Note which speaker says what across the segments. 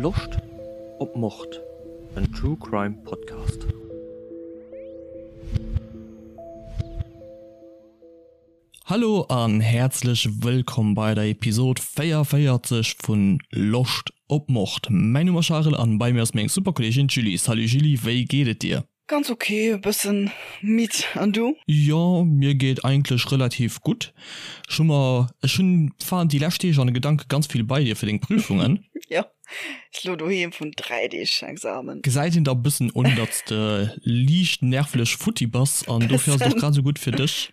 Speaker 1: Loscht op Mord? En True Crime Podcast. Hallo an häerzlech wëllkomm bei der Episode 44 vun Loscht op Mord. Mäin Numm ass Charel an bei mir ass meng super Kolleegin d'Julie. Salut Julie, wéi geet et dir?
Speaker 2: Ganz ok, e bëssen midd, an du?
Speaker 1: Jo, mir geet eigentlech relativ gutt. Ech hu mer, ech hunn, war déi lescht Deeg an de Gedanke ganz vill bei dir fir deng Prüfungen.
Speaker 2: Jo, ech lo doheem vun 3 Deeg Examen.
Speaker 1: Gesäit een der e bëssen un, datt s de liicht nervlech futti bass an dofir ass et och grad esou gutt fir dech,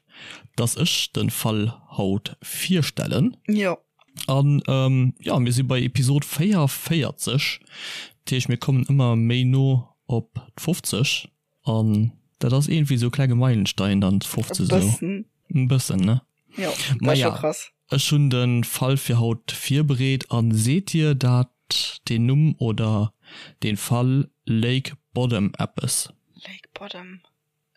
Speaker 1: datt ech de Fall haut virstellen.
Speaker 2: Jo.
Speaker 1: An jo, mir si bei Episod 44, dat heescht mir kommen ëmmer méi no op d'50 an dat ass iergendwéi esou e klenge Meilenstein dann d'50 esou.
Speaker 2: Bëssen.
Speaker 1: E bëssen, ne?
Speaker 2: Jo, dat ass scho krass.
Speaker 1: Ech hunn de Fall fir haut virbereet an seet dir dat deen Numm oder dee Fall Lake Bodom eppes?
Speaker 2: Lake Bodom.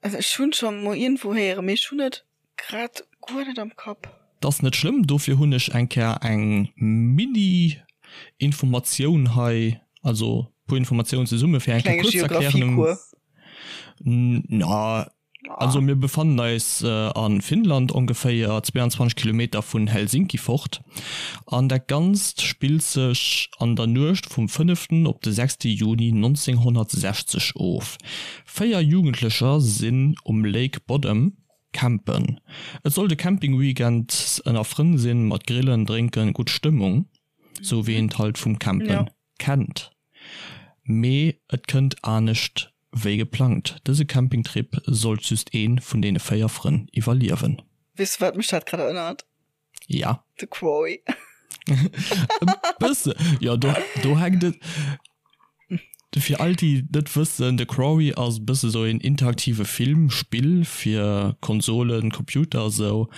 Speaker 2: Also ech hunn scho mol iergendwou héieren, mee ech hunn et grad guer net am Kapp.
Speaker 1: 't ass net schlëmm, dofir hunn ech eng Kéier eng Mini-Informatioun hei, also puer Informatiounen zesumme fir eng Kéier
Speaker 2: Klenge
Speaker 1: kuerz z'erklären.
Speaker 2: Geographiekuer.
Speaker 1: Na, also mir befannen eis a Finnland, ongeféier 22 Kilometer vun Helsinki fort, an dat Ganzt spillt sech an der Nuecht vum fënneften op de sechste Juni 1960 of. 4 Jugendlecher sinn um Lake Bodom campen. Et sollt e Camping-Weekend ënner Frënn sinn, mat Grillen, Drénken, gutt Stëmmung, sou wéi een et halt vum Campen kennt. Mee et kënnt anescht wéi geplangt, dëse Campingtrip sollt just ee vun deene 4 Frënn iwwerliewen.
Speaker 2: Weess du wat mech dat grad erënnert?
Speaker 1: Ja.
Speaker 2: De Quarry.
Speaker 1: E bësse. Jo, do, do hänkt et. Fir all déi net wëssen, de Quarry ass e bësse sou een interaktive Film, Spill fir Konsolen, Computer a sou.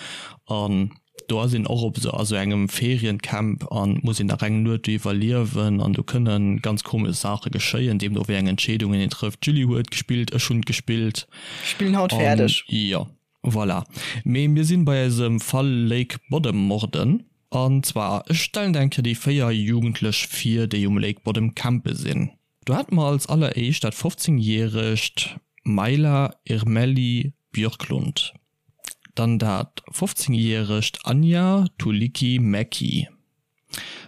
Speaker 1: An do ass een och op sou a sou engem Feriencamp an muss een nach eng Nuet do iwwerliewen an do kënne ganz komesch Saache geschéien, deemno wéi eng Entscheedungen een trëfft. D'Julie huet gespillt, ech hunn gespillt.
Speaker 2: Spillen haut fäerdeg.
Speaker 1: Jo. Voilà. Mee mir sinn bei eisem Fall Lake Bodom Morden. An zwar, ech stellen der eng Kéier déi 4 Jugendlech vir, déi um Lake Bodom campe sinn. Do hate mer als alleréischt dat 15 järegt Maila Irmeli Björklund, dann dat 15 järegt Anja Tuulikki Mäki,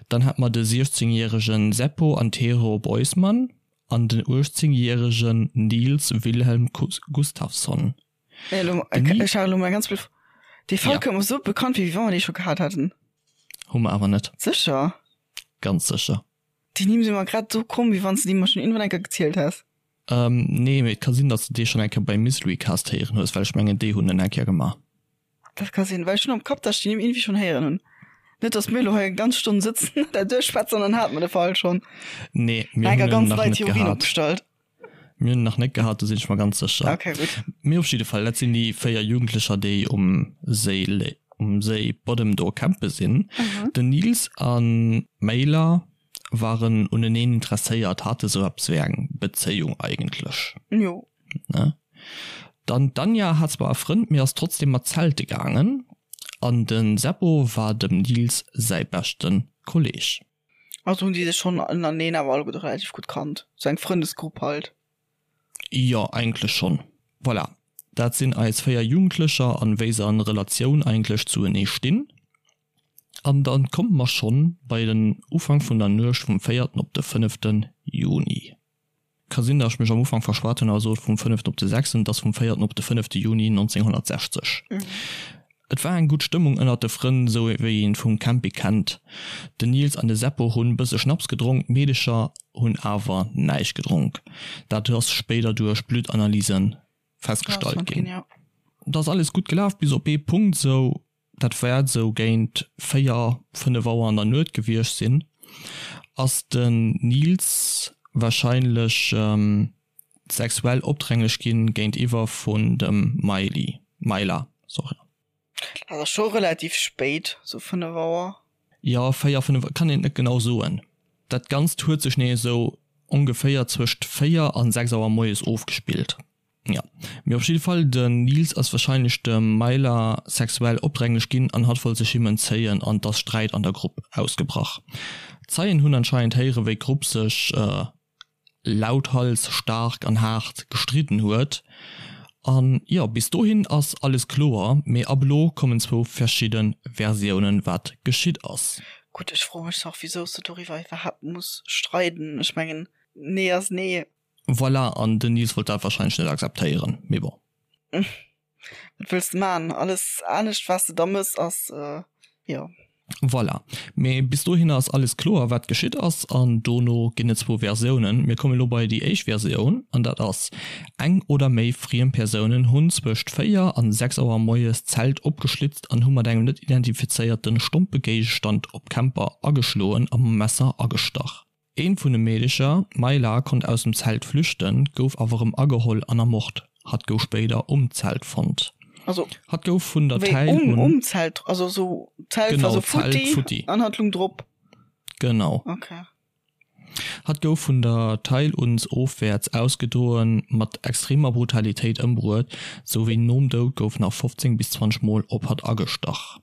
Speaker 1: dann hate mer de 16 järegen Seppo Antero Boisman an den 18 järegen Nils Wilhelm Gustafsson.
Speaker 2: Ech hat elo mol ganz blöd. Dee Fall kënnt mer sou bekannt vir, wéi wa mer dee scho gehat hätten.
Speaker 1: Hu mer awer net.
Speaker 2: Sécher?
Speaker 1: Ganz sécher.
Speaker 2: Déi Nimm si mer grad esou komm, wéi wann s de déi mer schonn iergendwann eng Kéier gezielt häss.
Speaker 1: Nee, mee et ka sinn, datt s de dee schonn eng Kéier beim Mysterycast héieren hues, well ech mengen, déi hunn en eng Kéier gemaach.
Speaker 2: Dat ka sinn, well ech hunn am Kapp, datt ech déi Nimm iergendwéi schonn héieren hunn. Net, datt mir elo hei eng ganz Stonn sëtzen an dat duerchschwätzen an dann hate mer de Fall schonn.
Speaker 1: Nee, mir hunn en nach net gehat. Mir hunn en nach net gehat, do sinn ech mer ganz sécher.
Speaker 2: Okay, gutt.
Speaker 1: Mee op jidde Fall, dat sinn déi 4 Jugendlecher, déi um Séi, um Séi Bodem do campe sinn. Den Nils a Maila waren uneneen interesséiert, hate sou eppes wéi eng Bezéiung eigentlech.
Speaker 2: Jo.
Speaker 1: Ne? Dann d'Anja hat zwar e Frënd, mee ass trotzdem mat zelte gaangen. An de Seppo war dem Nils säi beschte Kolleg.
Speaker 2: Also hunn déi sech schonn ënnerteneen awer alleguerte relativ gutt kannt. Sou eng Frëndesgrupp halt.
Speaker 1: Jo, eigentlech schonn. Voilà, dat sinn eis 4 Jugendlecher an wéi se an Relatioun eigentlech zuenee stinn. An dann komme mer schonn bei den Ufank vun der Nuecht vum véierten op de fënneften Juni. Ka sinn, datt ech mech am Ufank verschwat hunn a sot vum fënneften op de sechsten, et ass vum véierten op de fënnefte Juni 1960. Et war eng gutt Stëmmung ënnert de Frënn, sou wéi een vum Camping kennt. Den Nils an de Seppo hunn bësse Schnaps gedronk, d'Meedecher hunn awer näischt gedronk. Dat ass spéider duerch Bluttanalysen festgestallt ginn. Et ass alles gutt gelaf bis op ee Punkt, sou dat wäert esou géint 4, 5 Auer an der Nuet gewiescht sinn, ass den Nils warscheinlech sexuell opdränglech ginn géintiwwer vun dem Miley, Myla, sorry.
Speaker 2: Dat ass scho relativ spéit, sou 5 Auer.
Speaker 1: Jo, 4, 5, kann een et net genau soen. Dat Ganzt huet sech nee esou ongeféier zwëscht 4 an 6 Auer moies ofgespillt. Jo, mee op jidde Fall, den Nils ass wahrscheinlech dem Myla sexuell opdränglech ginn an hatt wollt sech him entzéien an 't ass Sträit an der Grupp ausgebrach. Zeien hunn anscheinend héiere wéi d'Grupp sech lauthals, staark an haart gestridden huet. An jo, bis dohin ass alles kloer, mee ab elo kommen zwou verschidde Versiounen wat geschitt ass.
Speaker 2: Gutt, ech froe mech och wisou s de doriwwer iwwerhaapt muss streiden. Ech mengen, nee ass nee.
Speaker 1: Voilà, an den Nils wollt dat wahrscheinlech net akzeptéieren, mee bon.
Speaker 2: Wat wëlls de man? Alles anescht wat s de da mëss ass jo.
Speaker 1: Voilà. Mee bis dohinner ass alles kloer wat geschitt ass an dono ginn et zwou Versiounen. Mir kommen elo bei déi éischt Versioun an dat ass, Eng oder méi friem Persounen hunn zwëscht 4 an 6 Auer moies d'Zelt opgeschlitzt an hu mat engem net identifizéierte stompe Géigestand op d'Camper ageschloen a mam Messer agestach. Eent vun de Meedecher, d'Mayla, konnt aus dem Zelt flüchten, gouf awer erëm ageholl an ermort. Hatt gouf spéider um Zelt fonnt.
Speaker 2: Also
Speaker 1: Hatt gouf vun der
Speaker 2: wéi
Speaker 1: Täil
Speaker 2: um
Speaker 1: un.
Speaker 2: um Zelt, also sou d'Zelt war
Speaker 1: Genau,
Speaker 2: sou
Speaker 1: d'Zelt
Speaker 2: futti
Speaker 1: futti.
Speaker 2: an hatt lung drop.
Speaker 1: Genau.
Speaker 2: Okay.
Speaker 1: Hatt gouf vun der Teil uns ofwäerts ausgedroen, mat extremer Brutalitéit ëmbruet, sou wéi nom Doud gouf nach 15 bis 20 Mol op hatt agestach.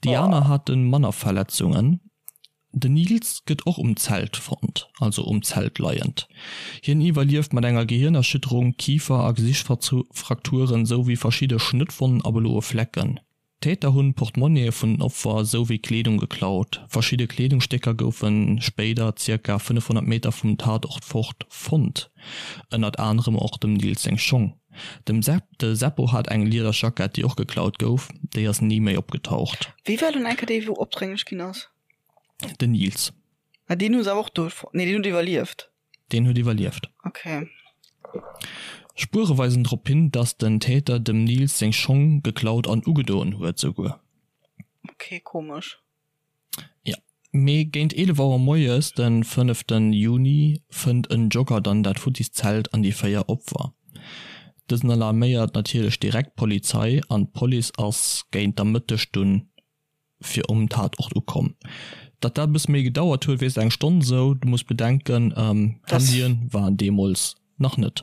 Speaker 1: Déi aner hate manner Verletzungen. Den Nils gëtt och um Zelt fonnt, also um Zelt leiend. Hien iwwerlieft mat enger Gehirnerschütterung, Kifer a Gesichtsfrakturen souwéi verschidde Schnëttwonnen a bloe Flecken. D'Täter hunn d'Portmonnië vun den Opfer souwéi Kleedung geklaut. Verschidde Kleedungsstécker goufe spéider zirka 500 Meter vum Tatort fort fonnt, ënnert anerem och dem Nils seng Schong. Dem de Seppo hat eng Liederjackett, déi och geklaut gouf, déi ass ni méi opgetaucht.
Speaker 2: Wie war dunn enker dee wou opdrénglech ginn ass?
Speaker 1: Den Nils.
Speaker 2: Ah deen hu se awer och do fonnt? Nee deen huet iwwerlieft.
Speaker 1: Deen huet iwwerlieft.
Speaker 2: Okay.
Speaker 1: Spuere weisen drop hin, dass den Täter dem Nils seng Schong geklaut an ugedoen huet souguer.
Speaker 2: Okay, komesch.
Speaker 1: Jo. Mee géint 11 Auer moies den fënneften Juni fënnt en Jogger dann dat futtis Zelt an déi 4 Opfer. Dësen alarméiert natierlech direkt d'Polizei an d'Police ass géint der Mëtteg dunn fir um Tatort ukomm. Datt dat e bësse méi gedauert huet, weess eng Stonn esou. Du muss bedenken, Handyen waren deemools nach net.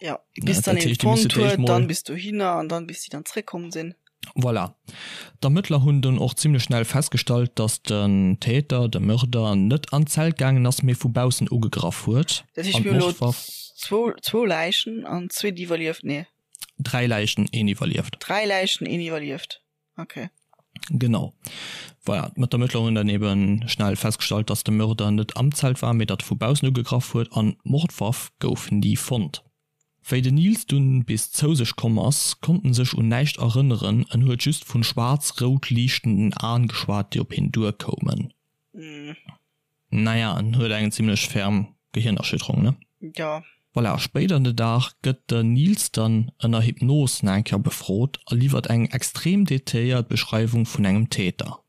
Speaker 2: Jo, bis dann een fonnt huet, dann bis dohinner an dann bis déi dann zréckkomm sinn.
Speaker 1: Voilà. D'Ermëttler hunn dunn och zimmlech schnell festgestallt, datt den Täter, de Mörder, net an d'Zelt gaangen ass, mee vu baussen ugegraff huet.
Speaker 2: Dat heescht, mir hunn elo zwou Läichen an zwee déi iwwerlieft, nee?
Speaker 1: Dräi Läichen, een iwwerlieft.
Speaker 2: Dräi Läichen, een iwwerlieft. Okay.
Speaker 1: Genau. Voilà, d'Ermëttler hunn dann eben schnell festgestallt, dass de Mörder net am Zelt war, mee datt e vu baussen ugegraff huet an d'Mordwaff gouf ni fonnt. Wéi den Nils dunn bis zou sech komm ass, konnt en sech un näischt erënneren, en huet just vun schwaarz-rout liichtenden Aen geschwat, déi op hien duerkoumen. Naja, en huet eng zimlech ferm Gehirnerschütterung, ne?
Speaker 2: Jo.
Speaker 1: Voilà, spéider den Dag gëtt den Nils dann ënner Hypnos nach eng Kéier befrot a liwwert eng extrem detailléiert Beschreiwung vun engem Täter.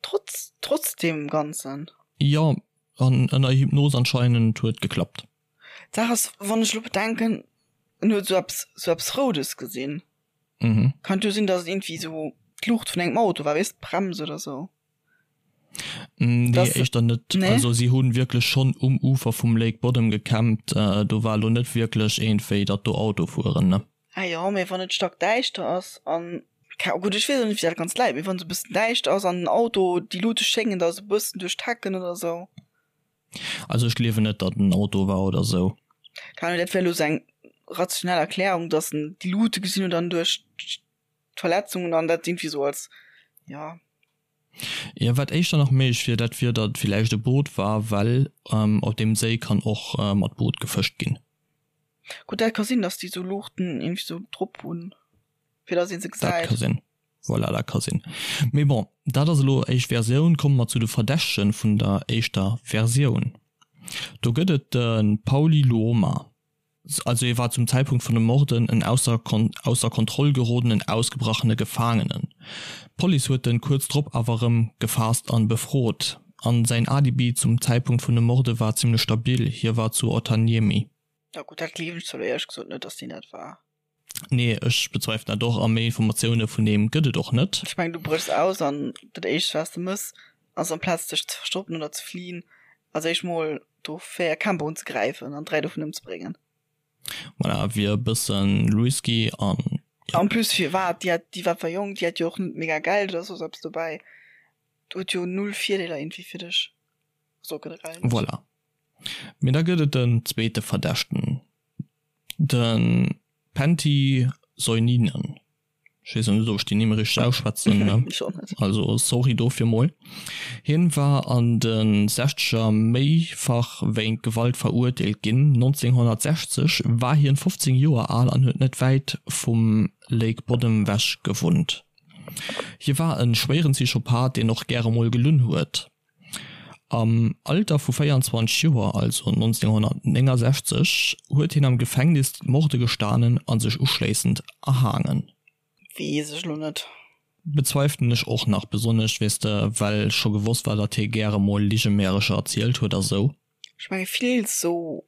Speaker 2: Trotz, trotz deem Ganzen?
Speaker 1: Jo, an ënner Hypnos anscheinend huet geklappt.
Speaker 2: D'Saach ass, wann ech elo bedenken, en huet esou eppes, esou eppes Roudes gesinn.
Speaker 1: Mhm.
Speaker 2: Kann jo sinn, dass et iergendwéi esou d'Luucht vun engem Auto war, weess, d'Brems oder esou.
Speaker 1: Nee, das, éischter net. Nee? Also si hunn wierklech schonn um Ufer vum Lake Bodom gecampt. Äh, do war lo net wierklech iergendwéi, datt do Auto fueren, ne?
Speaker 2: Ah jo, mee wann et stackdäischter ass an, gutt, ech weess och net, wéi dat ganz läit, mee wann et esou e bëssen däischter ass an den Auto, déi Luute schéngen da esou e bëssen duerch d'Hecken oder esou.
Speaker 1: Also ech gleewen net, datt en Auto war oder esou.
Speaker 2: Keine Ahnung, dat wär elo esou eng rationell Erklärung, datt en déi Luute gesinn huet an duerch d'Verletzungen an dat irgendwie sou als, ja.
Speaker 1: Jo, wat éischter nach méiglech wier, dat wier, datt et villäicht e Boot war, well op deem Séi kann och mat Boot gefëscht ginn.
Speaker 2: Gutt, dat ka sinn, datt déi sou Luuchten irgendwie sou drop hunn, fir datt ee se
Speaker 1: Dat
Speaker 2: gesäit.
Speaker 1: ka sinn, voilà, dat ka sinn. Mee bon, dat ass elo éischt Versioun. Komme mer zu de Verdächtege vun der éischter Versioun. Do gëtt et de Pauli Luoma. Also hie war zum Zäitpunkt vun de Morden en ausser ausser Kontroll gerodenen, ausgebrachene Gefaangenen. D'Police huet en kuerz drop awer erëm gefaasst an befrot. An säin Alibi zum Zäitpunkt vun de Morde war zimmlech stabil, hie war zu Otaniemi.
Speaker 2: Ja gutt, dat gleewen ech zwar elo éierlech gesot net, dass deen dat war.
Speaker 1: Nee, ech bezweifelen dat och a méi Informatioune vun deem gëtt et och net.
Speaker 2: Ech mengen, du bréchs aus an dat éischt wat s de mëss ass amplaz dech ze verstoppen oder ze fliehen, als éischt mol do 4 Camper unzegräifen an 3 dovun ëmzebréngen.
Speaker 1: Voilà, wier e bëssen risky an
Speaker 2: jo. En plus firwat? Déi hat, déi war zwar jonk, déi hat jo och net mega Geld oder soss eppes dobäi. Do huet jo null Virdeeler iergendwéi fir dech. So generell.
Speaker 1: Voilà. Mee da gëtt et den zweete Verdächten, de Pentti Soininen. Ech weess net, ob ech déi Nimm richteg ausschwätzen, ne?
Speaker 2: Ech och net.
Speaker 1: Also sorry dofir mol. Hien war an de Sechzeger méifach wéint Gewalt verurteelt ginn. 1960 war hien 15 Joer al an huet net wäit vum Lake Bodom wech gewunnt. Hie war e schwéieren Psychopath, deen och gäre mol gelunn huet. Am Alter vu 24 Joer, also 1969, huet hien am Gefängnis d'Morde gestanen a sech uschléissend erhaangen.
Speaker 2: Weess ech lo net.
Speaker 1: Bezweifelen ech och nach, besonnesch, weess de, well scho gewosst war, datt hie gäre mol Ligemärecher erzielt huet a sou.
Speaker 2: Ech menge vill sou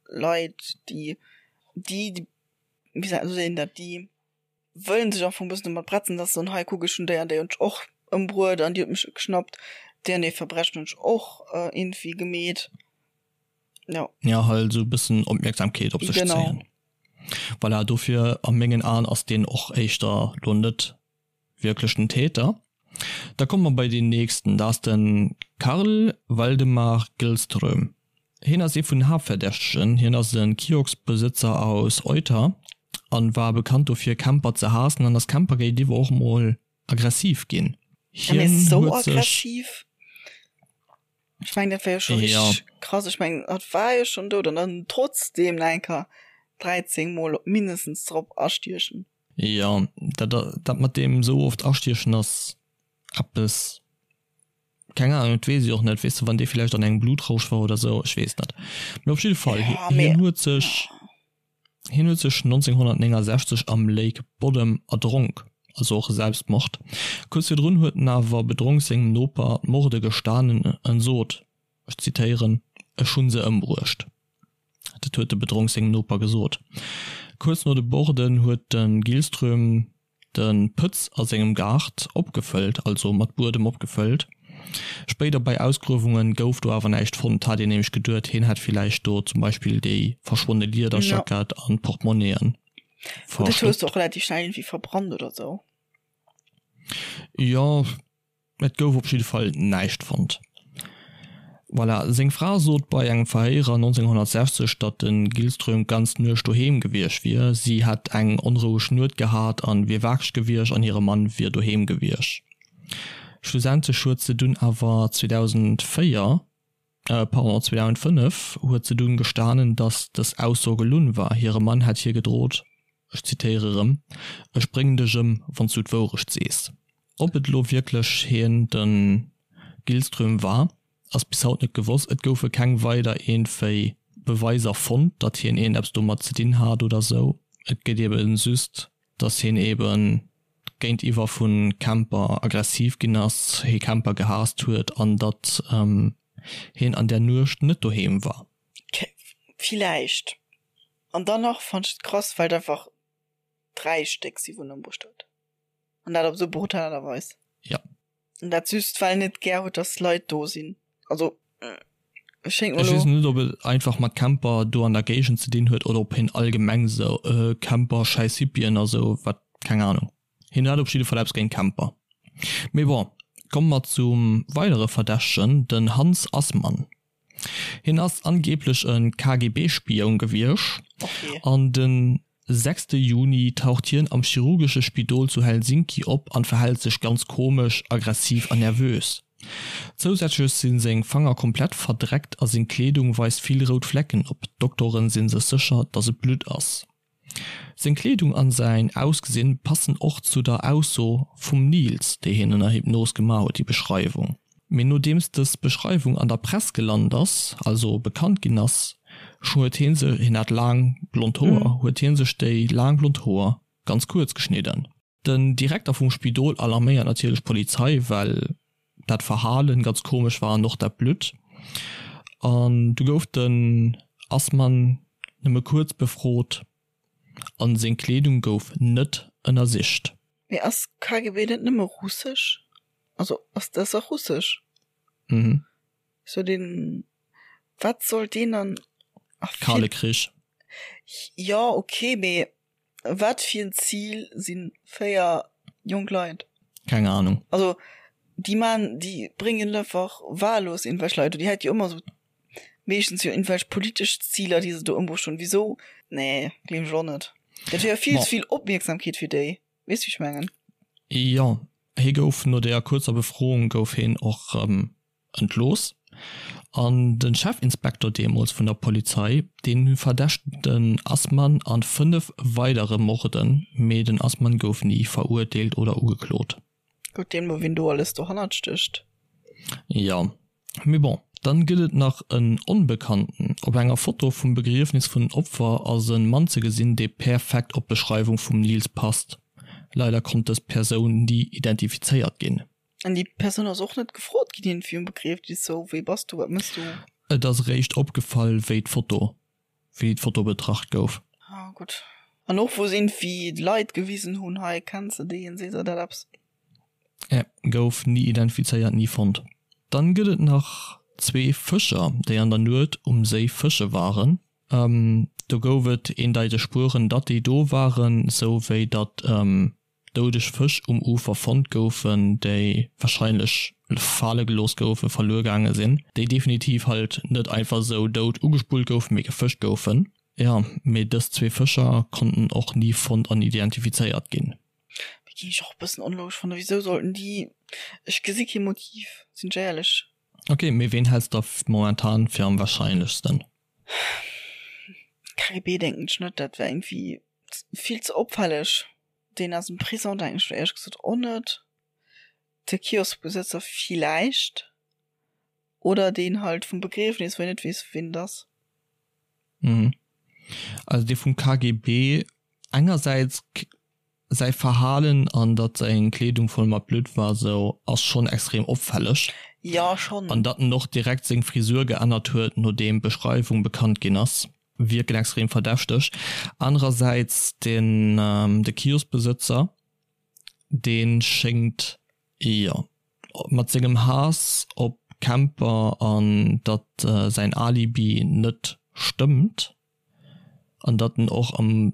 Speaker 2: Leit, déi, déi, wéi seet een dat, déi wëllen sech am Fong bëssen domat bretzen, dass se soen, hei kuck, ech hunn déi an déi hunn ech och ëmbruet an déi huet mech geschnappt, déi an déi Verbrechen hunn ech och iergendwéi gemeet. Jo.
Speaker 1: Ja, halt esou e bëssen Opmierksamkeet op sech zéien. Voilà, dofir a mengen Aen ass deen och éischter lo net wierklech den Täter. Da komme mer bei deen nächsten, dat ass de Karl Waldemar Gillström. Hien ass ee vun den Haaptverdächtegen. Hien ass e Kioskbesëtzer aus Euter an war bekannt dofir Camper ze haassen an ass Camper géintiwwer och mol aggressiv ginn.
Speaker 2: Hien huet sech. Ech mengen dat war jo scho richteg krass. Ech mengen hatt war jo schonn dout an dann trotzdeem nach eng Kéier 13 mol mindestens drop astiechen.
Speaker 1: Jo, dat dat mat deem esou oft astiechen ass eppes, keng Ahnung, dat weess ech och net, weess de, wann dee villäicht an engem Blutrausch war oder sou, ech weess net. Mee op jidde Fall, hien huet sech, hien huet sech 1969 am Lake Bodom erdronk, also och e Selbstmord. Kuerz virdrun huet en awer bedronk sengem Noper d'Morde gestanen en sot, ech zitéieren, Ech hunn se ëmbruecht. Dat huet de bedronk sengem Noper gesot. Kuerz no de Borden huet de Gillström de Pëtz a sengem Gaart opgefëllt, also mat Buedem opgefëllt. Spéider bei Ausgruewunge gouf do awer näischt fonnt. Hat een nämlech geduet, hien hätt villäicht do zum Beispill déi verschwonne Liederjackett an d'Portmonnien
Speaker 2: verstoppt. Dat hues de och relativ schnell iergendwéi verbrannt oder sou.
Speaker 1: Jo. Et gouf op jidde Fall näischt fonnt. Voilà, seng Fra sot bei engem Verhéier 1960, datt de Gillström d'ganz Nuecht doheem gewiescht wier. Si hätt eng onroueg Nuet gehat an wier wakereg gewiescht an hire Mann wier doheem gewiescht. Schlussendlech huet se dunn awer 2004, pardon, 2005 huet se dunn gestanen, datt dës Ausso gelunn war. Hire Mann hätt hir gedrot, ech zitéiere rëm, Ech bréngen dech ëm, wann s du d'Wourecht sees. Ob et elo wierklech hien, de Gillström war, ass bis haut net gewosst. Et goufe keng weider iergendwéi Beweiser fonnt, datt hien iergendeppes domat ze dinn hat oder sou. Et gëtt ebe just, datt hien ebe géintiwwer vu Camper aggressiv ginn ass, hie Camper gehaasst huet an datt hien an där Nuecht net doheem war.
Speaker 2: Villäicht. An dann nach fannt ech et krass, well et einfach 3 Stéck si wou en ëmbruecht huet. An dat op esou brutal Aart a Weis.
Speaker 1: Ja.
Speaker 2: An dat just well en net gär huet, dass Leit do sinn. Also
Speaker 1: et schéngt mer elo. Ech weess net, ob et einfach mat Camper do an der Géigend ze dinn huet oder ob hien allgemeng esou Camper, schäiss Hippien a sou wat, keng Ahnung. Hien hat op jidde Fall eppes géint Camper. Mee bon, komme mer zum weidere Verdächtegen, den Hans Assmann. Hien ass angeeblech e KGB-Spioun gewiescht an de sechste Juni taucht hien am chirurgesche Spidol zu Helsinki op an verhält sech ganz komesch, aggressiv an nervös. Zousätzlech si seng Fanger komplett verdreckt a seng Kleedung weist vill rout Flecken op. D'Doktoren si sech sécher, datt et Blutt ass. Seng Kleedung an säin Ausgesinn passen och zu der Ausso vum Nils, déi hien ënner Hypnos gemaach huet, déi Beschreiwung. Mee nodeems dës Beschreiwung an der Press gelant ass, also bekannt ginn ass, huet hien sech, hien hat laang blond Hoer, huet hien sech déi laang blond Hoer ganz kuerz geschnidden. Den Direkter vum Spidol alarméiert natierlech d'Polizei, well dat Verhalen ganz komesch war an och dat Blutt. An du gouf den Assmann nëmme kuerz befrot an seng Kleedung gouf net ënnersicht.
Speaker 2: Mee ass KGB net nëmme russesch? Also ass dat och russesch? Mhm. So den wat soll deen dann?
Speaker 1: Kale Krich.
Speaker 2: Jo okay, mee Wat fir en Zil sinn 4 jonk Leit?
Speaker 1: Keng Ahnung.
Speaker 2: Also. Déi man, déi bréngen einfach wahllos irgendwelch Leit, déi hätt jo ëmmer sou meeschtens jo irgendwelch politesch Ziler, déi se do ëmbruecht hunn. Wisou? Nee, gleewen ech och net. Dat wier jo vill ze vill Opmierksamkeet fir déi. Weess wéi ech mengen?
Speaker 1: Jo, hie gouf no deeër kuerzer Befroung gouf hien och rëm entlooss. An de Chefinspektor deemools vun der Polizei, deen verdächtegt den Assmann an 5 weidere Morden, mee den Assmann gouf ni verurteelt oder ugeklot.
Speaker 2: Gutt, deemno wien do alles dohannert stécht.
Speaker 1: Jo, mee bon. Dann gëtt et nach en Onbekannten. Op enger Foto vum Begriefnis vun den Opfer ass en Mann ze gesinn, dee perfekt op d'Beschreiwung vum Nils passt. Leider konnt dës Persoun ni identifizéiert ginn.
Speaker 2: An déi Persoun ass och net gefrot ginn iergendwéi um Begriefnis, sou, wee bass du, wat mëss du?
Speaker 1: Et ass eréischt opgefall, wéi d'Foto wéi d'Foto betracht gouf.
Speaker 2: Ah gutt. An och wou se iergendwéi Leit gewisen hunn, hei kenns de deen, seet der dat eppes?
Speaker 1: Ä, gouf ni identifizéiert, ni fonnt. Dann gëtt et nach zwee Fëscher, déi an der Nuet um Séi fësche waren. Do gouf et eendeiteg Spueren, datt déi do waren, sou wéi datt doudeg Fësch um Ufer fonnt goufen, déi warscheinlech fale gelooss goufen, verluer gaange sinn, déi definitiv halt net einfach esou dout ugespullt goufen, mee gefëscht goufen. Jo, mee dës zwee Fëscher konnten och ni fonnt an identifizéiert ginn.
Speaker 2: Mee ginn ech och e bëssen onlogesch fannen. Wisou sollten déi, ech gesi kee Motiv, sinn ech éierlech.
Speaker 1: Ok, mee ween häls de momentan fir am warscheinlechsten?
Speaker 2: KGB denken ech net, dat wär iergendwéi vill ze opfälleg. Deen aus dem Prison denken ech lo éierlech gesot och net. De Kioskbesëtzer villäicht. Oder deen halt vum Begriefnis, wou een net weess, wien et ass.
Speaker 1: Mhm. Also dee vum KGB, engersäits säi Verhalen an datt seng Kleedung voll mat Blutt war sou, ass schonn extrem opfälleg.
Speaker 2: Jo, schonn.
Speaker 1: An datt en och direkt seng Frisur geännert huet, nodeem d'Beschreiwung bekannt ginn ass. Wierken extrem verdächteg. Anerersäits den de Kioskbesëtzer, dee schéngt, jo, mat sengem Haass op Camper an datt säin Alibi net stëmmt an datt en och am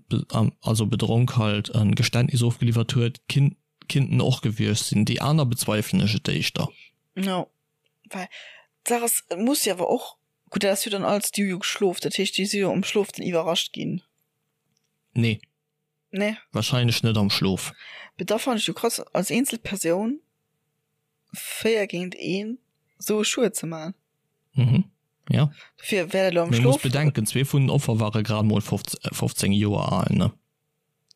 Speaker 1: also bedronk halt e Geständnis ofgeliwwert huet, kinnt en och gewiescht sinn. Déi aner bezweifelen ech et éischter.
Speaker 2: Jo, well d'Saach ass, et muss jo awer och Gutt, dat ass jo dann alles, déi hu jo geschlof, dat heescht, déi si jo am Schlof dann iwwerrascht ginn.
Speaker 1: Nee.
Speaker 2: Nee?
Speaker 1: Wahrscheinlech net am Schlof.
Speaker 2: Mee da fannen ech jo krass, als eenzel Persoun 4 géint 1 esou e Schued ze man.
Speaker 1: Mhm, ja.
Speaker 2: Dofir wär dat elo am
Speaker 1: Mee muss Schlof. bedenken, zwee vun den Offer ware grad mol 15 Joer al, ne?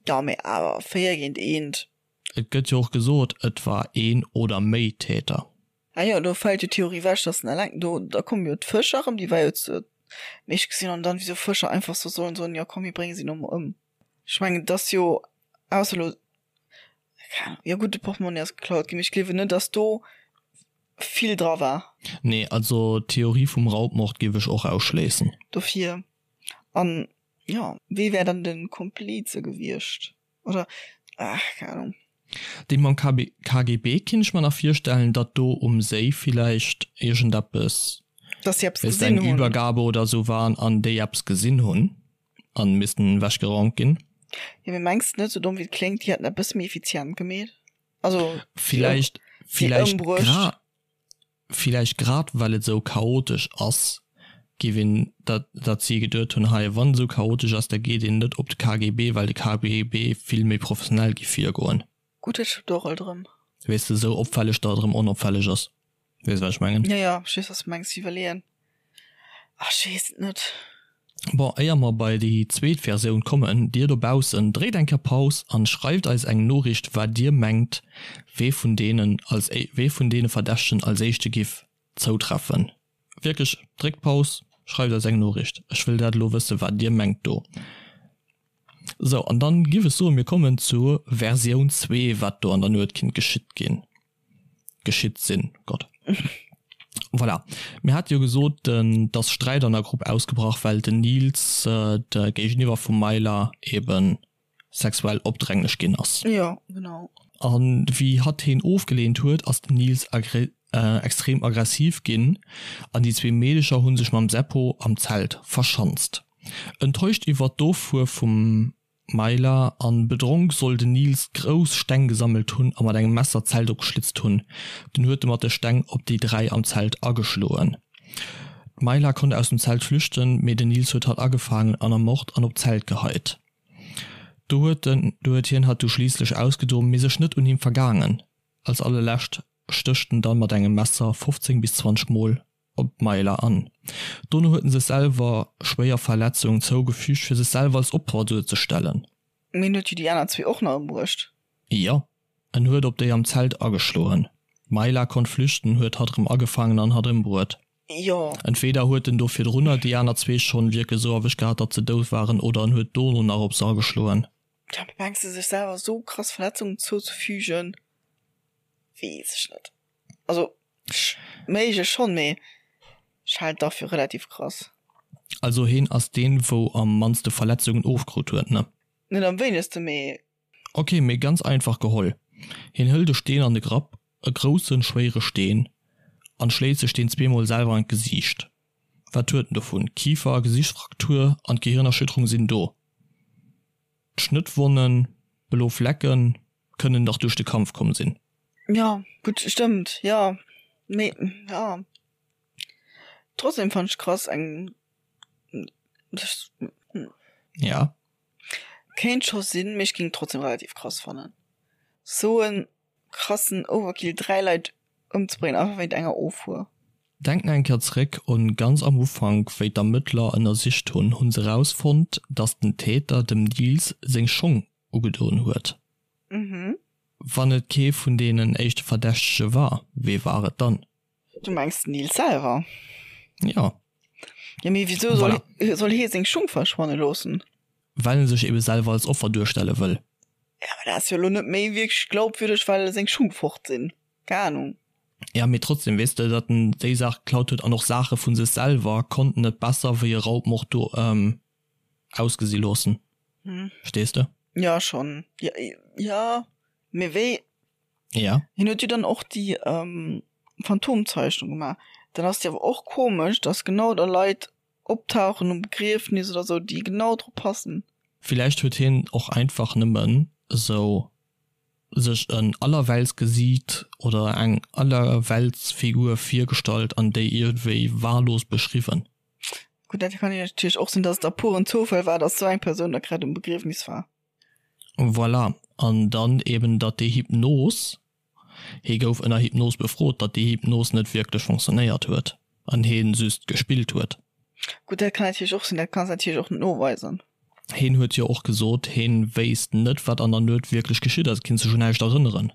Speaker 2: Jo, mee awer 4 géint 1.
Speaker 1: Et gëtt jo och gesot, et war een oder méi Täter.
Speaker 2: Ah jo, do fält jo d'Theorie wech, dass en eleng do, da komme jo d'Fëscher erëm, déi war jo zu mee ech gesinn an dann, wéi sou Fëscher einfach sou sollen soen, jo komm mir brénge si no mol ëm. Ech mengen, et ass jo, ausser elo, keng Ahnung, jo gutt, de Portmonni ass geklaut ginn, mee ech gleewen net, dass do vill dra war.
Speaker 1: Nee, also d'Theorie vum Raubmord géif ech och ausschléissen.
Speaker 2: Dofir, an jo, wee wär dann de Komplize gewiescht? Oder, ach, keng Ahnung.
Speaker 1: Dee mam KB, KGB kinnt ech mer nach virstellen, datt do um Séi villäicht iergendeppes,
Speaker 2: Dass si eppes
Speaker 1: wéisst eng gesinn hunn. Übergabe oder sou war an déi eppes gesinn hunn an missten ewechgeraumt ginn.
Speaker 2: Jo, mee mengs de net, sou domm wéi et kléngt, déi hätten dat bësse méi effizient gemeet? Also,
Speaker 1: si ëm, Villäicht,
Speaker 2: si
Speaker 1: villäicht
Speaker 2: ëmbruecht.
Speaker 1: gra, Villäicht grad well et esou chaotesch ass, géif een, dat dat si geduet hunn, hei wann et esou chaotesch ass, da geet een net op de KGB, well de KGB vill méi professionell géif virgoen.
Speaker 2: Gutt, dat stëmmt och alt erëm.
Speaker 1: Weess de, esou opfälleg, datt et erëm onopfälleg ass. Weess wat ech mengen?
Speaker 2: Jo, jo, ech weess wat s de mengs. Iwwerleeën, ach ech weess et net.
Speaker 1: Bon, éier mer bei déi zweet Versioun kommen, dir dobaussen, dréit eng Kéier Paus an schreift eis eng Noriicht wat dir mengt wee vun deenen als wee vun deene Verdächtegen als éischte giff zoutreffen. Wierklech, dréckt Paus, schreift eis eng Noriicht, ech wëll dat elo wëssen wat dir mengt do. Sou, an dann giff ech soen, mir kommen zur Versioun 2, wat do an der Nuet kinnt geschitt ginn. Geschitt sinn, Gott. Voilà. Mir hate jo gesot, dass Sträit an der Grupp ausgebrach, well den Nils de Géigeniwwer vum Myla ebe sexuell opdränglech ginn ass.
Speaker 2: Jo, genau.
Speaker 1: A wéi hatt heen ofgeleent huet, ass den Nils extrem aggressiv ginn an déi zwee Meedecher hu sech mam Seppo am Zelt verschanzt. Enttäuscht iwwert d'Offuer vum. Maila an bedronk soll den Nils grouss Steng gesammelt hunn a mat engem Messer d'Zelt opgeschlitzt hunn. Dunn huet e mat de Steng op déi 3 am Zelt ageschloen. D'Maila konnt aus dem Zelt flüchten, mee den Nils huet hatt agefaangen an ermort an op d'Zelt geheit. Do huet den do huet hien hatt du schliisslech ausgedoen, mee sech net un him vergaangen. Als allerlescht stécht en dann mat engem Messer 15 bis 20 Mol op d'Maila an. Dono huet en sech selwer schwéier Verletzungen zougefügt, fir sech selwer als Opfer duerzestellen.
Speaker 2: Mee en huet jo déi aner zwee och nach ëmbruecht.
Speaker 1: Jo, en huet op déi am Zelt ageschloen. D'Maila konnt flüchten, huet hatt erëm agefaangen an hatt ëmbruet.
Speaker 2: Jo.
Speaker 1: Entweder huet en do virdrunner déi aner zwee schonn wierklech esou erwëscht gehat, datt se dout waren, oder en huet dono nach op se ageschloen.
Speaker 2: Ja, mee mengs de, sech selwer esou krass Verletzungen zouzefügen, weess ech net. Also méiglech schonn, mee ech halen et dach fir relativ krass.
Speaker 1: Also heen ass deen wou am mannste Verletzungen ofkrut huet, ne?
Speaker 2: Net am wéinegste, mee.
Speaker 1: Ok, mee ganz einfach geholl, heen hëlt e Steen an de Grapp, e groussen schwéiere Steen, an schléit sech deen zweemol selwer an d'Gesiicht. Wat huet en dovun? Kifer a Gesichtsfraktur an d'Gehirnerschütterung sinn do. D'Schnëttwonnen, blo Flecken, kënnen dach duerch de Kampf komm sinn.
Speaker 2: Jo, gutt, stëmmt, jo, mee jo, trotzdem fannen ech krass eng,
Speaker 1: Ja.
Speaker 2: Kéint scho sinn, mee ech géing et trotzdem relativ krass fannen, sou en krassen Overkill, 3 Leit ëmzebréngen einfach wéint enger Offuer.
Speaker 1: Denk nach eng Kéier zeréck un ganz am Ufank, wéi d'Ermëttler ënnersicht hunn, hunn se rausfonnt, dass den Täter dem Nils seng Schong ugedoen huet. Wann et kee vun deenen éischte Verdächtege war, wee war et dann?
Speaker 2: Du mengs den Nils selwer?
Speaker 1: Jo.
Speaker 2: Jo, mee wisou soll, voilà. soll hie seng Schung verschwanne loossen?
Speaker 1: Well en sech ebe selwer als Offer duerstelle wëll.
Speaker 2: Ja, mä dat ass jo elo net méi wierklech glaubwürdeg, well seng Schung fort sinn. Keng Ahnung.
Speaker 1: Ja, mee trotzdem, weess de, datt en déi Saach geklaut huet an och Saache vu sech selwer, konnt en et besser wéi e Raubmord do ausgesi loossen. Verstees de?
Speaker 2: Ja, schonn. Ja, ja, mee wéi?
Speaker 1: Ja.
Speaker 2: Hien huet jo dann och déi Phantomzeichnung gemaach. Dann ass et jo awer och komesch, datt genau da Leit optauchen um Begriefnis oder sou, déi genau drop passen.
Speaker 1: Villäicht huet hien och einfach nëmmen esou sech en Allerweltsgesiit oder eng Allerweltsfigur virgestallt an déi iergendwéi wahllos beschriwwen.
Speaker 2: Gutt, dat kann jo natierlech och sinn, datt et a puren Zoufall war, datt sou eng Persoun da grad um Begriefnis war.
Speaker 1: Voilà, an dann eben, datt déi Hypnos, hie gouf ënner Hypnos befrot, datt déi Hypnos net wierklech fonctionnéiert huet an hie just gespillt huet.
Speaker 2: Gutt, dat kann natierlech och sinn, dat kanns natierlech och net noweisen.
Speaker 1: Hien huet jo och gesot, hien wéisst net, wat an der Nuet wierklech geschitt ass, kinnt sech un näischt erënneren.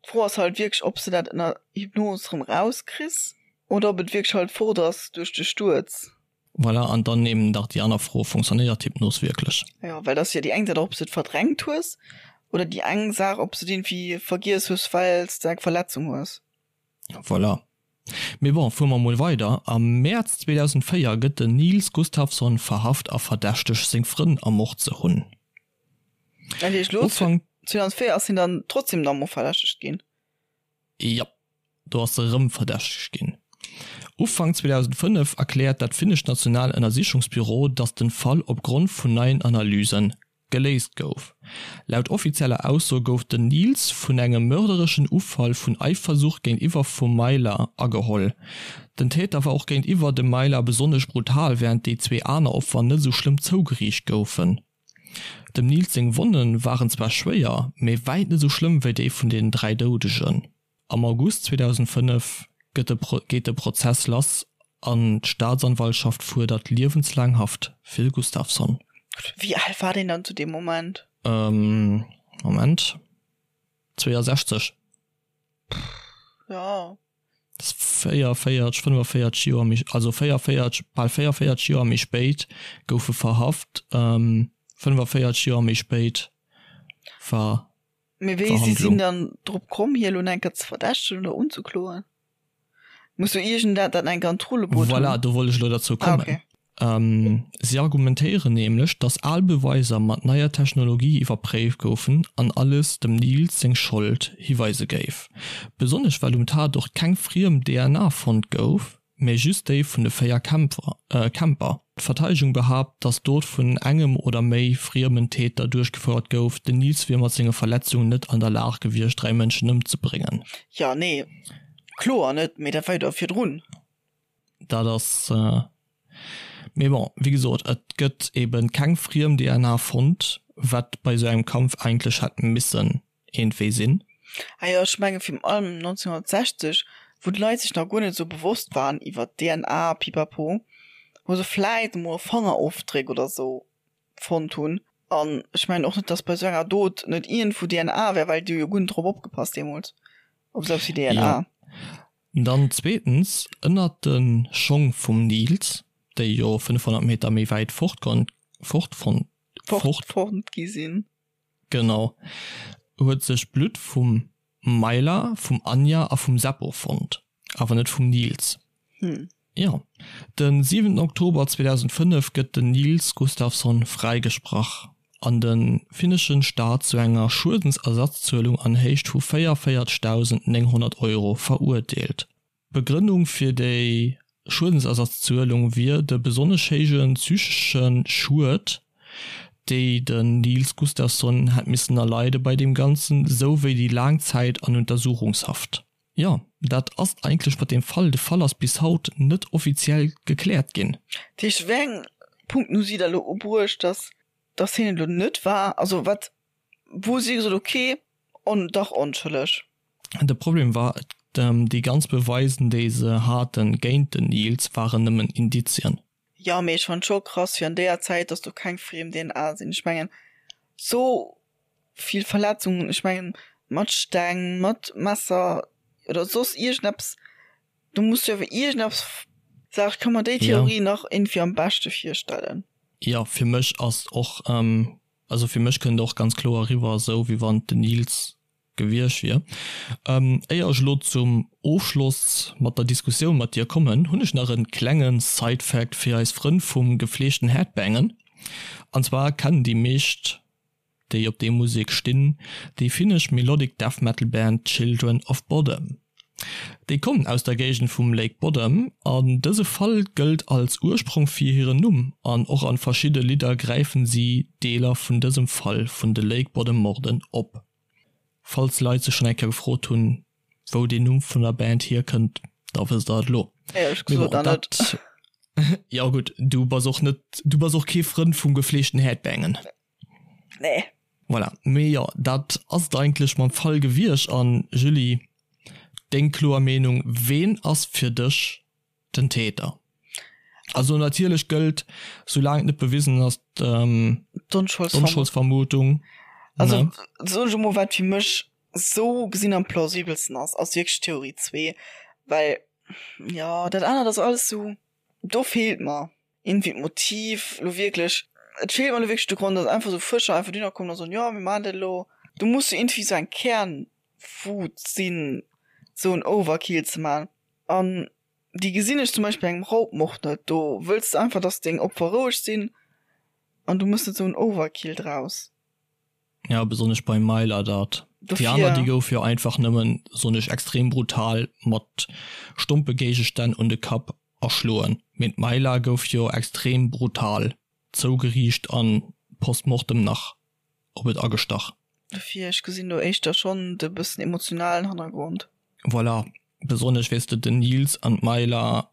Speaker 2: D'Fro ass halt wierklech, ob s de dat ënner Hypnos erëm rauskriss oder ob et wierklech halt fort ass duerch de Stuerz.
Speaker 1: Voilà, an dann eben nach déi aner Fro, Fonctionnéiert d'Hypnos wierklech?
Speaker 2: Jo, well dat ass jo déi eng Saach, ob s de et verdrängt hues, oder déi eng Saach, ob s de et iergendwéi vergiess hues, well s de eng Verletzung hues.
Speaker 1: Voilà. Mee bon, fuere mer mol weider. Am Mäerz 2004 gëtt den Nils Gustafsson verhaft a verdächtegt, seng Frënn ermort ze hunn.
Speaker 2: Dat heescht, elo 2004 ass hien dann trotzdem nach emol verdächtegt ginn?
Speaker 1: Jop, do ass se erëm verdächtegt ginn. Ufank 2005 erkläert dat finnescht National Ënnersichungsbüro, datt den Fall opgrond vun neien Analyse geléist gouf. Laut offizieller Ausso gouf den Nils vun engem mördereschen Ufall vun Eifersucht géintiwwer vum Maila ageholl. Den Täter war och géintiwwer dem Maila besonnesch brutal, wärend déi zwee aner Opfer net esou schlëmm zougeriicht goufen. Dem Nils seng Wonne waren zwar schwéier, mee wäit net esou schlëmm wéi déi vun den 3 Doudegen. Am August 2005 gëtt de geet de Prozess lass an d'Staatsanwaltschaft fuerdert liewenslaang Haft fir de Gustafsson.
Speaker 2: Wéi al war deen dann zu deem Moment?
Speaker 1: Moment, 62.
Speaker 2: Jo.
Speaker 1: 44, 45 Joer méi, also 44, bal 44 Joer méi spéit gouf e verhaft, 45 Joer méi spéit war
Speaker 2: Mee wéi si sinn dann drop komm, hie lo enker ze verdächtegen oder unzekloen? Muss jo iergendat dat enker an d'Rulle bruet
Speaker 1: hunn. Voilà, do wollt ech elo derzou kommen. Ah, okay. Si argumentéieren nämlech, datt al Beweiser mat neier Technologie iwwerpréift goufen an alles dem Nils seng Schold hiweise géif. Besonnesch well um Tatort keng friem DNA fonnt gouf, mä just déi vun de 4 Camper. D'Verteidegung behaapt, datt d'Dot vun engem oder méi friemen Täter duerchgefouert gouf. Den Nils wier mat senge Verletzungen net an der Lag gewiescht, 3 Mënschen ëmzebréngen.
Speaker 2: Jo, nee, kloer net, mee dat war jo da virdrun.
Speaker 1: Dat ass, mee bon, wéi gesot, et gëtt ebe keng friem DNA fonnt, wat bei esou engem Kampf eigentlech hätt missen iergendwéi sinn.
Speaker 2: Ah jo, ech menge virun allem 1960, wou d'Leit sech nach guer net esou bewosst waren iwwer DNA pipapo, wou se vläit emol e Fangerofdréck oder esou fonnt hunn. An ech mengen och net, datt bei esou enger Dot net iergendwou DNA wär, well déi hu jo guer net drop opgepasst deemools, op esou eppes wéi DNA.
Speaker 1: Jo. Dann zweetens, ënnert de Schong vum Nils, déi jo 500 Meter méi wäit fort fort fort
Speaker 2: fonnt gi sinn.
Speaker 1: Genau, huet sech Blutt vum Maila, vum Anja a vum Seppo fonnt, awer net vum Nils. Jo, de 7 Oktober 2005 gëtt den Nils Gustafsson fräigesprach an de finneschen Staat zu enger Schuedensersatzzuelung an Héicht vu 44.900 Euro verurteelt. D'Begrënnung fir déi Schuedensersatzzuelung wier de besonnesch héije psychesche Schued, déi den Nils Gustafsson hätt missen erleide bei deem Ganzen, sou wéi déi laang Zäit an Untersuchungshaft. Jo, dat ass et eigentlech mat deem Fall. De Fall ass bis haut net offiziell gekläert ginn.
Speaker 2: Dat heescht, wéi eng Punkten hu si da elo ubruecht, dass dass hien et elo net war? Also wat, wou hu si gesot, okay, on, dach onschëlleg?
Speaker 1: De Problem war, déi ganz Beweisen déi se haten géint den Nils waren nëmmen Indizien.
Speaker 2: Jo, mee ech fannen scho krass fir an déier Zäit, dass do keng friem DNA sinn. Ech mengen sou vill Verletzungen, ech mengen mat Steng, mat Messer oder soss iergendeppes, do muss jo awer iergendeppes, sag ech, ka mer déi Theorie nach iergendwéi am beschte virstellen.
Speaker 1: Jo, fir mech ass och, also fir mech kënnt och ganz kloer eriwwer esou wéi wann den Nils gewiescht wier. Éier ech elo zum Ofschloss mat der Diskussioun mat dir kommen, hunn ech nach en klenge Side-Fact fir eis Frënn vum gefleegten Headbangen. An zwar kennen déi meescht, déi op déi Musek stinn, déi finnesch Melodic Death Metal Band Children of Bodom. Déi kommen aus der Géigend vum Lake Bodom an dëse Fall gëllt als Ursprong fir hiren Numm an och an verschidde Lidder gräifen si Deeler vun dësem Fall vun de Lake Bodom Morden op. Falls Leit sech schonn eng Kéier gefrot hunn, wou deen Numm vun der Band hierkënnt, da wësst der et elo.
Speaker 2: Éierlech gesot
Speaker 1: nach net. Jo gutt, du bass och net, du bass och kee Frënd vum gefleegten Headbangen.
Speaker 2: Nee.
Speaker 1: Voilà, mee jo, dat ass et eigentlech mam Fall gewiescht. An Julie, deng kloer Meenung, ween ass fir dech den Täter? Also natierlech gëllt, soulaang et net bewisen ass,
Speaker 2: d'Onscholdsvermutung. Also soen ech emol, wat fir mech sou gesinn am plausibelsten ass, ass wierklech Theorie 2, well jo dat anert ass alles sou, do feelt mer iergendwéi d'Motiv lo wierklech. Et feelt mer lo wierklech de Grond, dass einfach sou Fëscher einfach dohinner kommen a soen, jo mir maachen dat elo. Do muss jo iergendwéi sou eng Kernwut sinn, sou en Overkill ze maachen. An déi gesinn ech zum Beispill bei engem Raubmord net. Do wëlls de einfach, dass deng Opfer roueg sinn an du mëss net sou en Overkill draus.
Speaker 1: Ja, besonnesch beim Myla dat. Déi aner, déi gouf jo einfach nëmmen, soen ech, extrem brutal mat stompe Géigestänn un de Kapp erschloen. Mee d'Myla gouf jo extrem brutal zougeriicht an post mortem nach op et agestach.
Speaker 2: Dofir, ech gesinn do éischter schonn de bëssen emotionalen Hannergrond.
Speaker 1: Voilà, besonnesch weess de, den Nils an d'Myla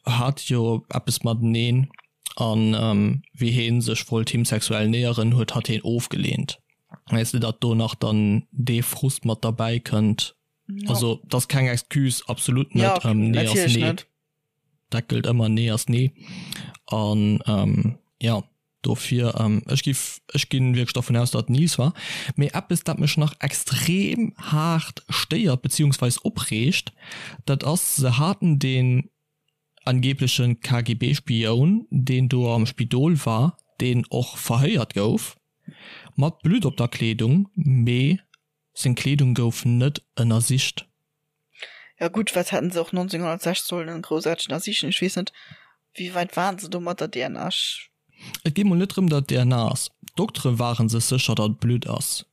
Speaker 1: hate jo eppes mateneen an wéi heen sech wollt him sexuell näheren, huet hatt heen ofgeleent. Weess de, datt do nach dann dee Frust mat derbäi kënnt. Also, dat ass keng Excuse, absolut net. Nee ass nee. Dat gëllt ëmmer, nee ass nee. An jo. Dofir, ech giff, ech ginn wierklech dervun aus, datt et Nice war. Mee eppes, dat mech nach extrem haart stéiert beziehungsweis opreegt, dat ass, se haten deen angebleche KGB-Spioun, deen do am Spidol war, deen och verhéiert gouf, mat Blutt op der Kleedung, mee seng Kleedung gouf net ënnersicht.
Speaker 2: Ja gutt, wat hätten se och 1906 sollen groussaarteg ënnersichen? Ech weess net, wéi wäit waren se do mat der DNA? Ech.
Speaker 1: Et geet mol net drëm, datt et DNA ass. D'Doktere ware sech sécher, datt et Blutt ass.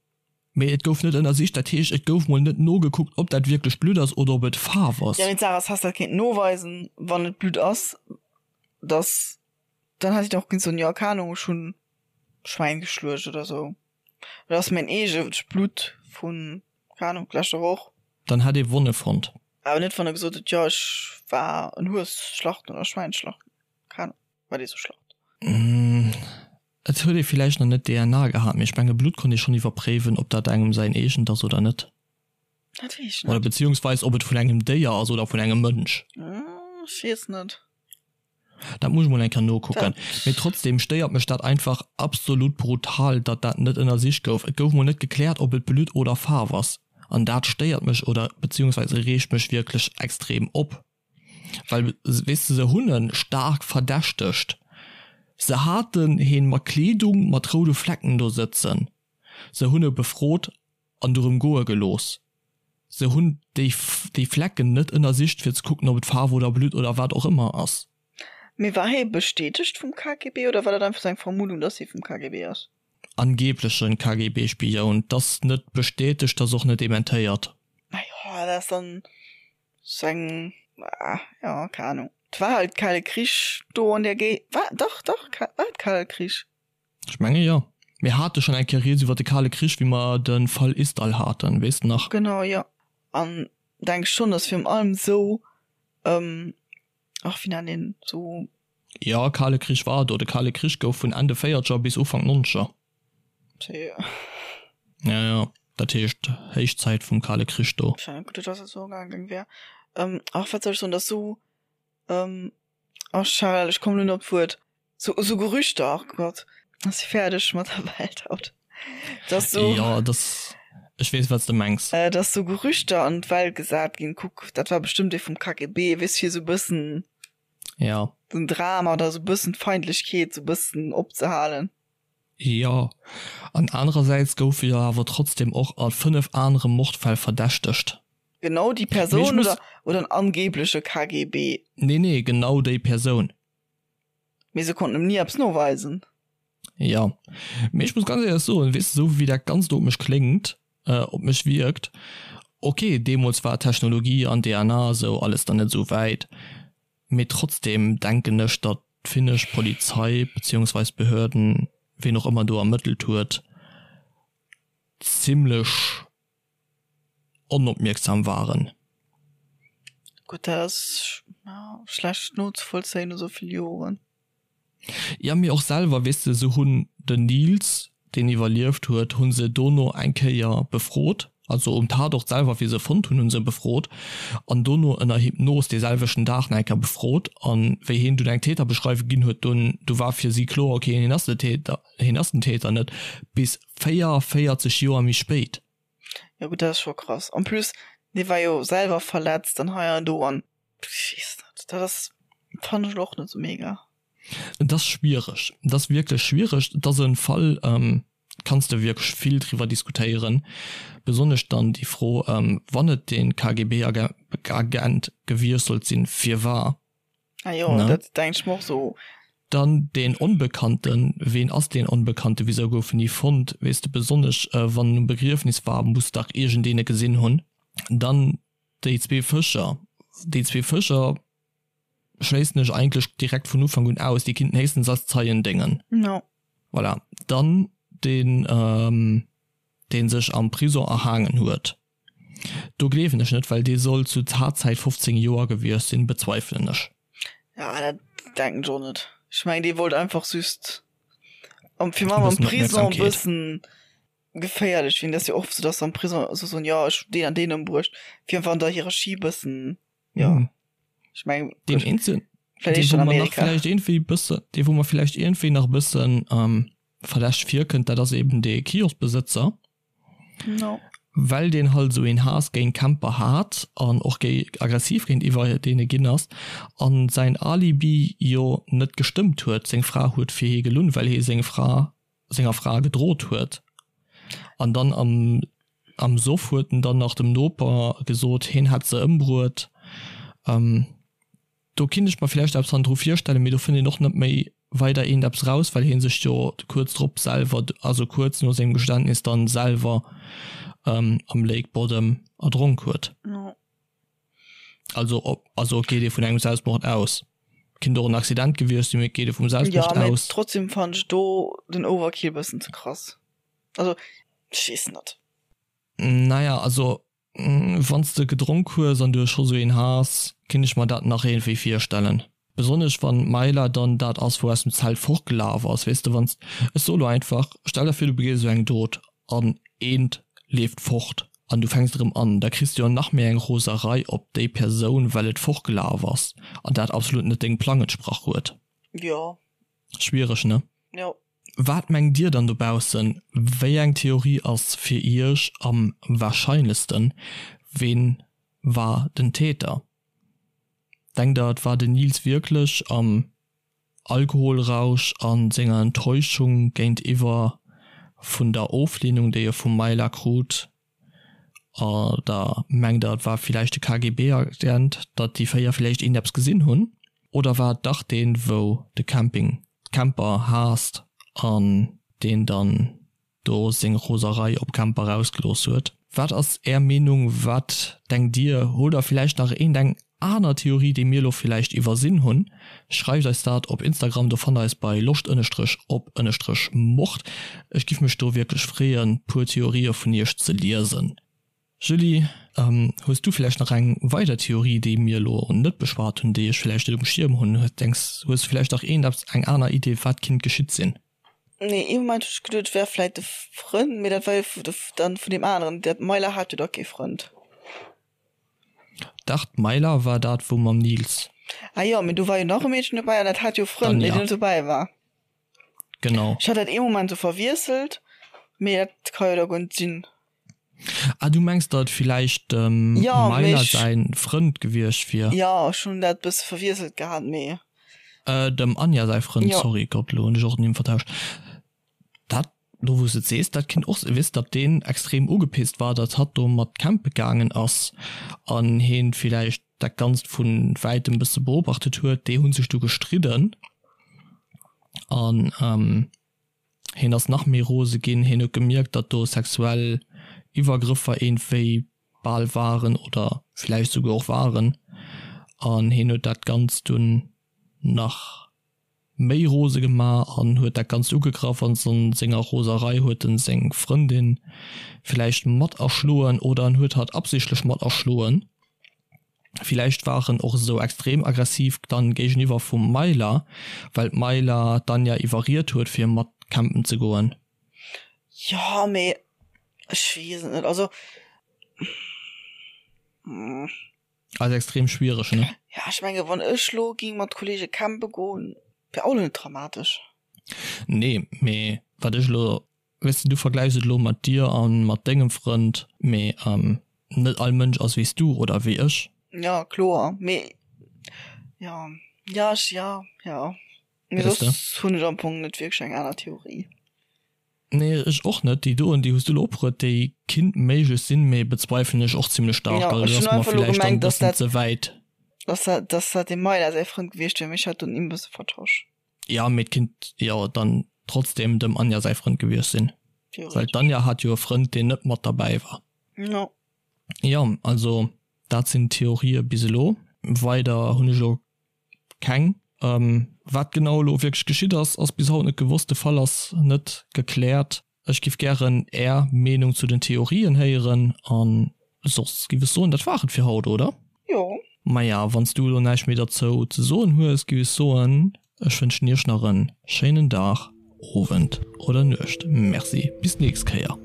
Speaker 1: Mee et gouf net ënnersicht. Dat heescht, et gouf mol net nogekuckt, ob dat wierklech Blutt ass oder ob et Faarf ass.
Speaker 2: Ja, mee d'Saach ass, häss dat kéinten noweisen, wann et Blutt ass, datt. Dann hätt een och kënnen soen, jo, keng Ahnung, ech hunn Schwäin geschluecht oder sou. Oder ass mäin eegent Blutt vun, keng Ahnung, leschter Woch.
Speaker 1: Dann hätt ee Wonne fonnt.
Speaker 2: Awer net, wann e gesot huet, jo, ech war en Hues schlachten oder Schwäin schlachten. Keng Ahnung, wat ee sou schlacht.
Speaker 1: Et huet ee villäicht nach net DNA gehat, mee ech menge Blutt konnt ee schonn iwwerpréiwen, ob dat engem säin eegent ass oder net.
Speaker 2: Dat weess ech net.
Speaker 1: Oder beziehungsweis ob et vun engem Déier ass oder vun engem Mënsch.
Speaker 2: Ech weess net.
Speaker 1: Dat muss ech mol eng Kéier nokucken. Mee trotzdem stéiert mech dat einfach absolut brutal, datt dat net ënnersicht gouf. Et gouf mol net gekläert, ob et Blutt oder Faarf ass. An dat stéiert mech oder beziehungsweise reegt mech wierklech extrem op. Well, weess de, se hunn e staark verdächtegt. Se haten heen mat Kleedung mat roude Flecken do sëtzen. Se hunn e befrot an dorëm goe gelooss. Se hunn déi déi Flecken net ënnersicht fir ze kucken ob et Faarf oder Blutt oder wat och ëmmer ass.
Speaker 2: Mee war hie bestätegt vum KGB oder war dat einfach sou eng Vermuddung, dass hie vum KGB ass?
Speaker 1: Angeblechen KGB-Spioun. T'ass net bestätegt, t'ass och net dementéiert.
Speaker 2: Majo, dat ass dann sou eng, jo, keng Ahnung. 't war halt Kale Krich do an där Géi, war, dach, dach, war et Kale Krich?
Speaker 1: Ech menge jo. Mir hate schonn eng Kéier rieds iwwer de Kale Krich, wéi mer de Fall Isdal haten, weess de nach?
Speaker 2: Genau, jo. An denk schonn, datt virun allem esou, ach, wéi nennt een esou.
Speaker 1: Jo, Kale Krich war do. De Kale Krich gouf vun Enn de Véierzeger bis Ufank Nonzeger. Ja, ja, dat heescht Héichzäit vum Kale Krich do.
Speaker 2: Gutt, datt dat esou gaangen wär. Ach, wat soll ech soen, datt esou, ach Charel, ech kommen elo net op d'Wuert. So, so Gerüchter, ach Gott, ass si fäerdeg mat der Welt haut.
Speaker 1: Dass so, Ja, das, ech weess, wat s de mengs.
Speaker 2: Äh, dass so Gerüchter an d'Welt gesat ginn, kuck, dat war bestëmmt ee vum KGB, weess, fir sou bëssen
Speaker 1: Ja.
Speaker 2: den Drama oder sou bëssen d'Feindlechkeet sou bëssen opzehalen.
Speaker 1: Jo, an anerersäits gouf e jo awer trotzdem och a 5 anere Mordfäll verdächtegt.
Speaker 2: Genau déi Persoun oder, oder en angebleche KGB?
Speaker 1: Nee, nee, genau déi Persoun.
Speaker 2: Mee se konnten em ni eppes noweisen.
Speaker 1: Jo, mee ech muss ganz éierlech soen, weess de, esou wéi dat Ganzt op mech kléngt, op mech wierkt, ok, deemools war Technologie an DNA a sou alles dann net esou wäit, mee trotzdem denken ech, datt d'finnesch Polizei beziehungsweis Behörden, ween och ëmmer do ermëttelt huet, zimlech onopmierksam waren.
Speaker 2: Gutt, dat ass schlecht nozevollzéien no sou vill Joren.
Speaker 1: Ja, mee och selwer, weess de, se hunn den Nils, deen iwwerlieft huet, hu se dono eng Kéier befrot, also um Tatort selwer, wéi se e fonnt hunn, hu se e befrot an dono ënner Hypnos dee selwechten Dag nach eng Kéier befrot. An wéi hien dunn eng Täterbeschreiwung ginn huet, dunn, du war fir si kloer, okay, hien ass de Täter, hien ass den Täter net, bis 44 Joer méi spéit.
Speaker 2: Jo gutt, dat ass scho krass. En plus, dee war jo selwer verletzt an hei an do an ech weess net, dat ass, fannen ech elo och net sou mega.
Speaker 1: Et ass schwiereg, et ass wierklech schwiereg. Et ass e Fall, kanns de wierklech vill driwwer diskutéieren, besonnesch dann déi Fro, wann et dee KGB-Agent gewiescht sollt sinn, firwar?
Speaker 2: Ah jo, ne? Dat denk ech mer och so.
Speaker 1: Dann deen Onbekannten, ween ass deen Onbekannten, wisou gouf en ni fonnt, weess de, besonnesch wann en um Begriefnis war, muss dach iergendeen e gesinn hunn. Dann déi zwee Fëscher, déi zwee Fëscher schléissen ech eigentlech direkt vun Ufank un aus, déi kinnten héchstens als Zeien déngen.
Speaker 2: No.
Speaker 1: Voilà. Dann deen, dee sech am Prison erhaangen huet. Do gleewen ech net, well dee soll zu Tatzäit 15 Joer gewiescht sinn, bezweifelen ech.
Speaker 2: Ja, dat denken ech och net. Ech mengen dee wollt einfach just am fir am am Prison e bëssen geféierlech ginn. Dat ass jo oft sou, dass se am Prison sou soen, jo ech hunn deen an deen ëmbruecht, fir einfach an der Hierarchie bëssen, jo.
Speaker 1: Ech mengen deen eenzel, dee wou mer nach vläicht iergendwéi bëssen, dee wou mer vläicht iergendwéi nach e bëssen verdächteg virkënnt, dat ass eben dee Kioskbesëtzer.
Speaker 2: No.
Speaker 1: Well deen halt esou een Haass géint Camper hat an och géi aggressiv géintiwwer deene ginn ass an säin Alibi jo net gestëmmt huet. Seng Fra huet fir hie gelunn, well hie seng Fra senger Fra gedrot huet. An dann am am Soff huet en dann nach dem Noper gesot, hien hätt se ëmbruet. Do kinnt ech mer villäicht eppes hannendru virstellen, mee do fënnt een och net méi weider eent eppes raus, well hie sech jo kuerz drop selwer, also kuerz no sengem Geständnis dann selwer am Lake Bodom erdronk huet. Also op, also geet ee vun engem Selbstmord aus. Kinnt och en Accident gewiescht sinn, mee et geet jo vum Selbstmord
Speaker 2: Ja, mee
Speaker 1: aus.
Speaker 2: trotzdem fannen ech do den Overkill bëssen ze krass. Also, ech weess net.
Speaker 1: Naja, also wann s de gedronk hues an du hues scho sou een Haass, kinnt ech mer dat nach iergendwéi virstellen. Besonnesch wann d'Mayla dann dat ass wou aus dem Zelt fortgelaf ass, weess de, wann s, ech soe lo einfach, stell der vir du begees esou eng Dot an eent leeft fort an du fänks erëm an, da kriss du jo nach méi eng Roserei op déi Persoun well et fortgelaf ass an dat absolut net dengem Plang entsprach huet.
Speaker 2: Jo.
Speaker 1: Schwiereg, ne?
Speaker 2: Jo.
Speaker 1: Wat mengt dir dann dobaussen, wéi eng Theorie ass fir iech am wahrscheinlechsten? Ween war den Täter? Denkt der et war den Nils wierklech am Alkoholrausch a senger Enttäuschung géintiwwer vun der Oflehnung déi e vum Mayla krut? Oder mengt der et war villäicht de KGB-Agent, datt déi 4 villäicht een eppes gesinn hunn? Oder war et dach deen wou de Camping, d'Camper haasst an deen dann do seng Roserei op Camper rausgelooss huet. Wat ass är Meenung, wat denkt dir? Hutt der villäicht nach eent eng aner Theorie déi mir elo villäicht iwwersinn hunn? Schreift eis dat op Instagram, do fannt der eis bei loscht ënnestrech op ënnestrech mord. Ech giff mech do wierklech freeën puer Theorië vun iech ze liesen. Julie, hues du villäicht nach eng weider Theorie, déi mir elo net beschwat hunn, déi ech villäicht net um Schierm hunn? Denks, hues du villäicht nach eent eppes, eng aner Idee wat kinnt geschitt sinn?
Speaker 2: Nee, ee Moment hunn ech geduet, et wär vläit de Frënd, mee dat war jo dann vun deem aneren. Dat d'Mayla hat jo da kee Frënd.
Speaker 1: Dach, d'Mayla war dat wou mam Nils.
Speaker 2: Ah jo, mee do war jo nach e Meedchen dobäi an dat hat jo e Frënd, mee deen net dobäi war.
Speaker 1: Genau.
Speaker 2: Ech hat dat ee Moment sou verwiesselt, mee dat ka jo da guer net sinn.
Speaker 1: Ah, du mengs, datt et villäicht dem
Speaker 2: Ja, mee
Speaker 1: Mayla
Speaker 2: ech.
Speaker 1: säin Frënd gewiescht wier?
Speaker 2: Jo, ech hunn dat bësse verwiesselt gehat, mee.
Speaker 1: Äh, dem Anja säi Frënd,
Speaker 2: Jo.
Speaker 1: sorry, Gott, elo hunn ech och d'Nimm vertauscht. Dat, elo wou s de et sees, dat kinnt och sinn, weess, datt deen extrem ugepisst war, datt hatt do mat campe gaangen ass an heen villäicht dat Ganzt vu wäitem bësse beobachtet huet. Déi hu sech du gestridden an, ähm, Hien ass nach méi rose ginn. Hien huet gemierkt, datt do sexuell Iwwergrëffer iergendwéi bal waren oder villäicht souguer och waren. An hien huet dat Ganzt dunn nach méi rose gemaach an huet dat Ganzt ugegraff. An a senger Roserei huet en seng Frëndin villäicht mat erschloen oder en huet hatt absichtlech mat erschloen. Villäicht war en och esou extrem aggressiv dann géigeniwwer vum Myla, well d'Myla d'Anja iwwerriet huet fir mat campen ze goen.
Speaker 2: Jo, mee ech weess et net, also.
Speaker 1: Ass extrem schwiereg, ne?
Speaker 2: Ja, ech menge wann ech lo ging mat Kollege campe goen, wär och lo net dramatesch.
Speaker 1: Nee, mee wat ech lo Weess de, du vergläichs et elo mat dir a mat dengem Frënd, mee net all Mënsch ass wéi s du oder wéi ech.
Speaker 2: Jo, kloer, mee jo, jo, ech, jo, jo, mee
Speaker 1: Weess de?
Speaker 2: soss hunn ech am Fong net wierklech eng aner Theorie.
Speaker 1: Nee, ech och net. Déi doen, déi hues du elo opgeruet, déi kinnt méiglech sinn, mee bezweifelen ech och zimlech staark.
Speaker 2: Jo,
Speaker 1: Also
Speaker 2: ech
Speaker 1: dat
Speaker 2: hunn
Speaker 1: ass mer
Speaker 2: einfach elo
Speaker 1: villäicht dann
Speaker 2: gemengt,
Speaker 1: e
Speaker 2: dass
Speaker 1: bëssen
Speaker 2: dat,
Speaker 1: ze wäit.
Speaker 2: dass dat, dass dat dem Mayla säi Frënd gewiescht wier, mee ech hat dunn e bësse vertosch.
Speaker 1: Ja, mee et kinnt jo dann trotzdem dem Anja säi Frënd gewiescht sinn. Well d'Anja hat jo e Frënd, deen net mat derbäi war.
Speaker 2: Jo.
Speaker 1: Jo, also dat sinn d'Theorië bis elo. Weider hunn ech elo keng. Wat genau elo wierklech geschitt ass, ass bis haut net gewosst. De Fall ass net gekläert. Ech giff gären är Meenung zu den Theorien héieren an soss giff ech soen, dat war et fir haut, oder?
Speaker 2: Jo.
Speaker 1: Maja, wanns du elo näischt méi derzou ze soen hues, giff ech soen, ech wënschen iech nach en schéinen Dag, Owend oder Nuecht. Merci, bis d'nächst Kéier.